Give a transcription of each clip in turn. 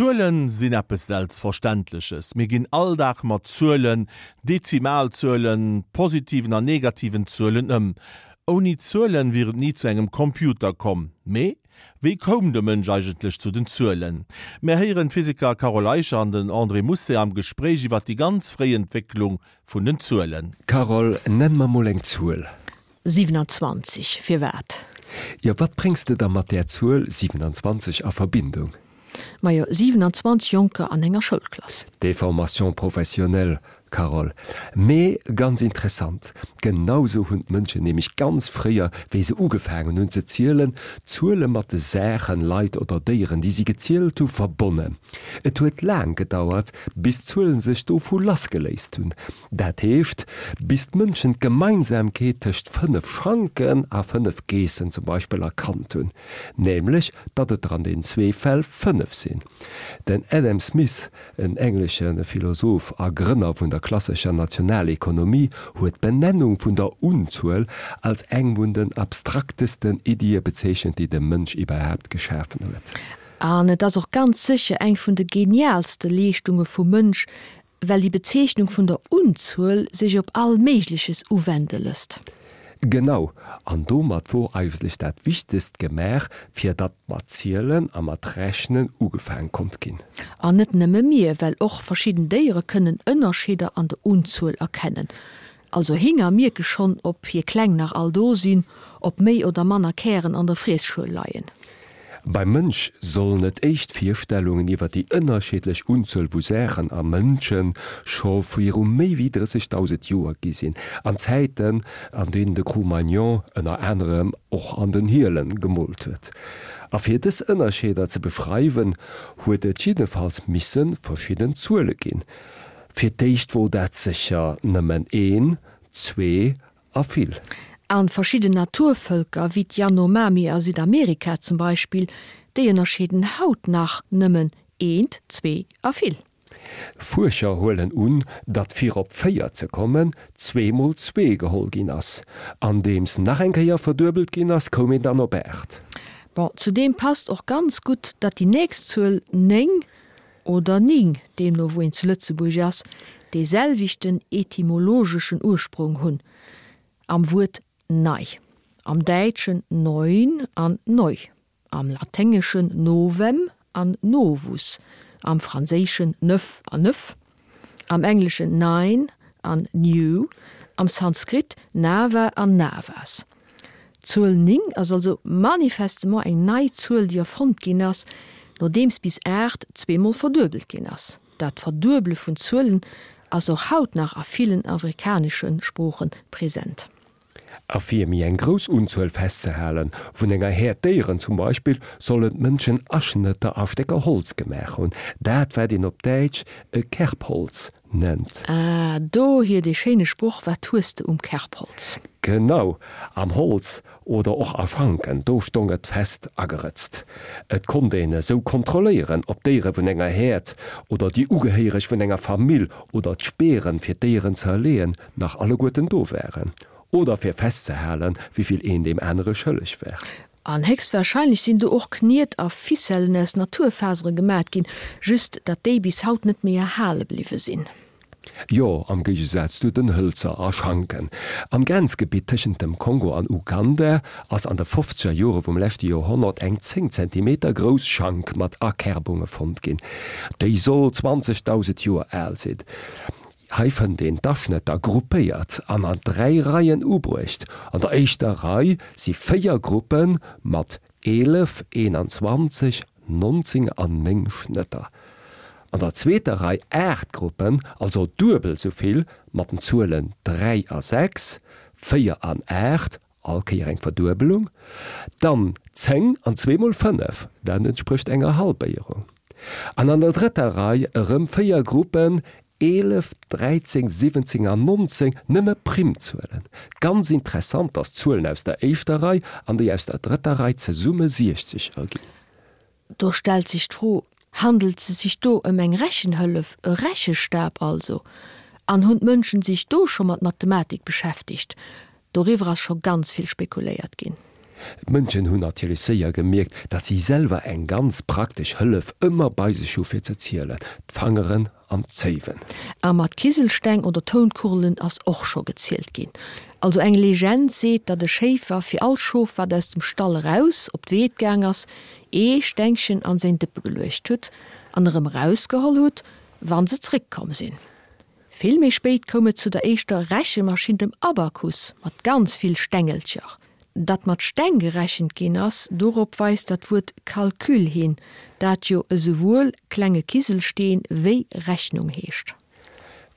Zuelen sinn eppes Selbstverständleches. Mir ginn all Dag mat Zuelen, Dezimalzuelen, positiven an negativen Zuelen ëm. Ouni Zuelen wier et ni zu engem Computer komm. Mee wéi koum de Mënsch eigentlech zu den Zuelen? Mär héieren d'Physiker Carole Eicher an den André Mousset am Gespréich iwwer déi ganz fréi Entwécklung vun den Zuelen. Carole, nenn mer mol eng Zuel. 27, Firwat? Jo, wat bréngs de da mat där Zuel 27 a Verbindung? Majo, 27 Jonker an enger Schoulklass. Déformation professionnelle, Carole. Mee ganz interessant. Genau sou hunn d'Mënschen nämlech ganz fréier, wéi se ugefaangen hunn ze zielen, d'Zuele mat de Saachen, Leit oder Déieren, déi si gezielt hu, verbonnen. Et huet laang gedauert, bis d'Zuelen sech dovu lassgeléist hunn. Dat heescht, bis d'Mënschen d'Gemeinsamkeet tëscht 5 Schanken a 5 Geessen zum Beispill erkannt hunn, nämlech datt et der an den zwee Fäll 5 sinn. Den Adam Smith, en englesche Philosoph a Grënner vun der klassescher Nationalekonomie, huet d'Benennung vun der Unzuel als eng vun den abstraktesten Iddie bezeechent, déi de Mënsch iwwerhaapt geschafen huet. An et ass och ganz sécher eng vun de geniaalste Leeschtunge vum Mënsch, well déi Bezeechnung vun der Unzuel sech op all Méigleches uwende lësst. Genau, an domat wor eigentlech dat Wichtegst gemaach, fir datt mat Zielen a mat Rechnen ugefaang konnt ginn. An net nëmme mir, well och verschidden Déiere kënnen Ënnerscheeder an der Unzuel erkennen. Also Hinger mierke schonn, ob hir Kleng nach all do sinn, ob méi oder manner Kären an der Friesschuel leien. Beim Mënsch sollen et éischt Virstellungen iwwer déi ënnerschiddlech Unzuel vu Saachen a Mënsche scho viru méi wéi 30.000 Joer gi sinn, an Zäiten, an deenen de Cro-Magnon ënner anerem och an den Hiele gemoolt huet. A fir dës Ënnerscheeder ze beschreiwen, huet et jiddefalls misse verschidden Zuele ginn. Fir d'éischt wor dat sécher nëmmen een, zwee a vill. An verschidden Naturvëlker, wéi d'Yanomami a Südamerika zum Beispill, déi ënnerscheeden haut nach nëmmen eent, zwee a vill. Fuerscher huelen un, datt fir op 4 ze kommen, zwee mol zwee geholl ginn ass. Andeems nach eng Kéier verduebelt ginn ass, koum een dann op 8. Bon, zudeem passt och ganz gutt, datt déi nächst Zuel 9 oder ning, deemno wou een zu Lëtzebuerg ass, dee selwechten etymologeschen Ursprong hunn am Wuert nei, am Däitschen neun an neu, am Laténgeschen novem an novus, am Franséischen neuf an neuf, am Engleschen nine an new, am Sanskrit nava an navas. D'Zuel 9 ass also manifestement eng nei Zuel, déi erfonnt ginn ass, nodeems bis 8 zweemol verduebelt ginn ass. Dat Verduebele vun Zuelen ass och haut nach a villen afrikanesche Sprooche present. A fir méi eng grouss Unzuel festzehalen, vun enger Häerd Déieren zum Beispill, sollen d'Mënschen Aschnëtter a Stécker Holz gemaach hunn, dat wat een op Däitsch e Kerbholz nennt. Ah, dohier dee schéine Sproch, Wat hues de um Kerbholz? Genau, am Holz oder och a Schanken, do stong et fest agerëtzt. Et konnt een esou kontrolléieren, ob d'Déiere vun enger Häerd oder déi Ugehéiereg vun enger Famill oder d'Speeren, fir d'Déieren ze erleeën, nach alleguerten do waren. Oder fir festzehalen, wéivill een deem anere schëlleg war. An héchstwahrscheinlech sinn do och Kniet a Ficellen aus Naturfasere gemat ginn, just datt déi bis haut net méi erhale bliwwe sinn. Jo, am Géigesaz zu den Hëlzer a Schanken. Am Grenzgebitt tëschent dem Kongo an Uganda ass an de fofzeger Jore vum leschte Joerhonnert eng 10 Zentimeter grouss Schank mat Akerbunge fonnt ginn. Déi soll 20.000 Joer al sinn. Hei fënnt een d'Aschnëtter gruppéiert an an 3 Reien ubruecht. An der éischter Rei si 4 Gruppe mat 11, 21, 19 an 9 Schnëtter. An der zweeter Rei 8 Gruppen, also duebel sou vill, mat den Zuelen 3 a 6, 4 an 8, all Kéier eng Verduebelung, dann 10 an zweemol 5, dat entsprécht enger Halbéierung. An an der drëtter Rei erëm 4 Gruppen, 11, 13, 17 an 19, nëmme Primzuelen. Ganz interessant, dass d'Zuelen aus der éischter Rei an déi aus der drëtter Rei zesumme 60 erginn. Do stellt sech d'Fro, Handelt se sech do ëm eng Rechenhëllef, e Rechestab also? An hunn d'Mënschen sech do scho mat Mathematik beschäftegt? Doriwwer ass scho ganz vill spekuléiert ginn. D'Mënschen hunn natierlech séier gemierkt, datt si selwer eng ganz praktesch Hëllef ëmmer bei sech hu fir ze zielen, d'Fangeren an d'Zéiwen. A mat Kiselsteng oder Tounkugelen ass och scho gezielt ginn. Also eng Legend seet, datt e Schéifer fir all Schof wat aus dem Stall eraus op d'Weed gaang ass, ee Stengchen an säin Dëppe geluecht hutt an erëm erausgeholl hutt, wann se zréckkomm sinn. Vill méi spéit koum et zu der éischter Rechemaschinn, dem Abakus, mat ganz vill Stengelcher. Datt mat Steng gerechent ginn ass, dorop weist dat Wuert Calcul hin, dat jo esouwuel klenge Kiselsteen wéi Rechnung heescht.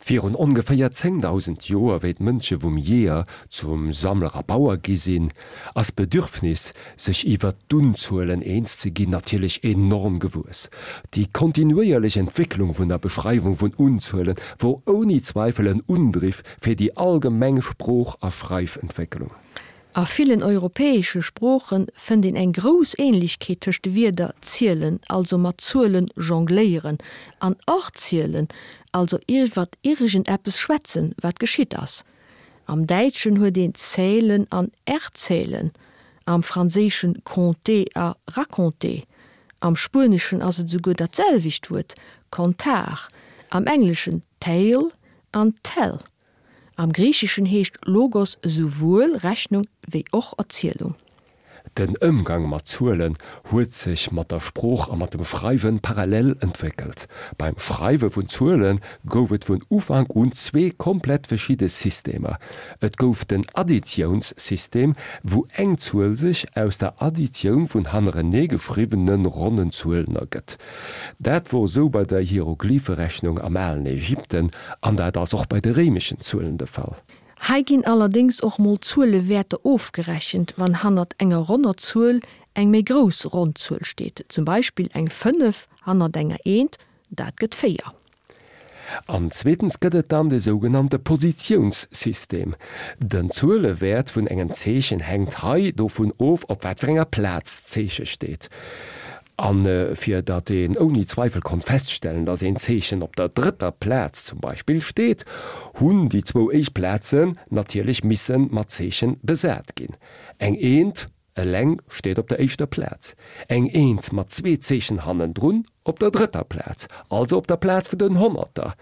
Virun ongeféier 10.000 Joer, wéi d'Mënsche vum Jeeër zum Sammler a Bauer gi sinn, ass d'Bedürfnis, sech iwwert d'Unzuelen eens ze ginn, natierlech enorm gewuess. Déi kontinuéierlech Entwécklung vun der Beschreiwung vun Unzuele wor ouni Zweifel en Undriff fir déi allgemeng Sprooch a Schreifentwécklung. A villen europäesche Sprooche fënnt een eng grouss Ähnlechkeet tëscht de Wierder zielen, also mat Zuelen jongléieren, an erzielen, also iwwert iergendeppes schwätzen, wat geschitt ass. Am Däitschen huet een zählen an erzählen, am Franséischen compter a raconter, am Spueneschen ass et esouguer dat selwecht Wuert contar, am Engleschen tale an tell. Am Griicheschen heescht Logos esouwuel Rechnung wéi och Erzielung. Den Ëmgang mat Zuelen huet sech mat der Sprooch a mat dem Schreiwe parallel entwéckelt. Beim Schreiwe vun Zuele gouf et vun Ufank un zwee komplett verschidde Systemer. Et gouf den Additiounssystem, wou eng Zuel sech aus der Additioun vun hannerenee geschriwwene ronnen Zuelen ergëtt. Dat wor esou bei der Hieroglypherechnung am alen Ägypten an dat ass och bei de réimeschen Zuelen de Fall. Hei ginn allerdéngs och mol Zuelewäerter ofgerechent, wann hannert enger ronner Zuel eng méi grouss ronn Zuel steet, zum Beispill eng 5 hannert enger Eent, dat gëtt 4. An zweetens gëtt et dann de sougenannte Positiounssystem. Den Zuelewäert vun engem Zeechen hänkt hei dovun of, op wat fir enger Plaz d'Zeeche steet. A fir datt een ouni Zweifel konnt feststellen, datt een Zeechen op der drëtter Plaz zum Beispill steet, hunn déi zwou éischt Plazen natierlech misse mat Zeeche besat ginn. Eng Eent eleng steet op der éischter Plaz, eng Eent mat zwee Zeechen hannendrun op der drëtter Plaz, also op der Plaz vun den Honnerter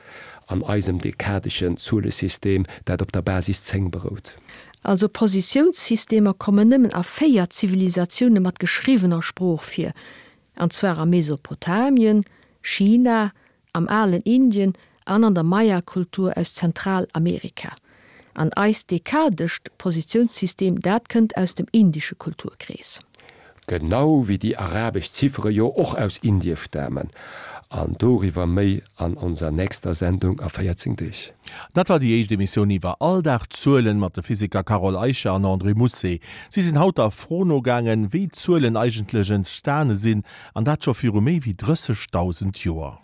an eisem dekadeschen Zuelesystem, dat op der Basis 10 berout. Also Positiounssystemer kommen nëmmen a 4 Zivilisatioune mat geschriwwener Sprooch vir, an zwar a Mesopotamien, China, am alen Indien an an der Maya-Kultur aus Zentralamerika. An eist dekadescht Positiounssystem, dat kënnt aus dem indesche Kulturkrees. Genau wéi déi arabesch Ziffere jo och aus Indie stamen. An doriwwer méi an onser nächster Sendung a 14 Deeg. Dat war déi éischt Emissioun iwwer Alldagzuelen mat de Physiker Carole Eicher an André Mousset. Si sinn haut der Fro nogaangen, wéi Zuelen eigentlech entstane sinn, an dat scho viru méi wéi 30.000 Joer.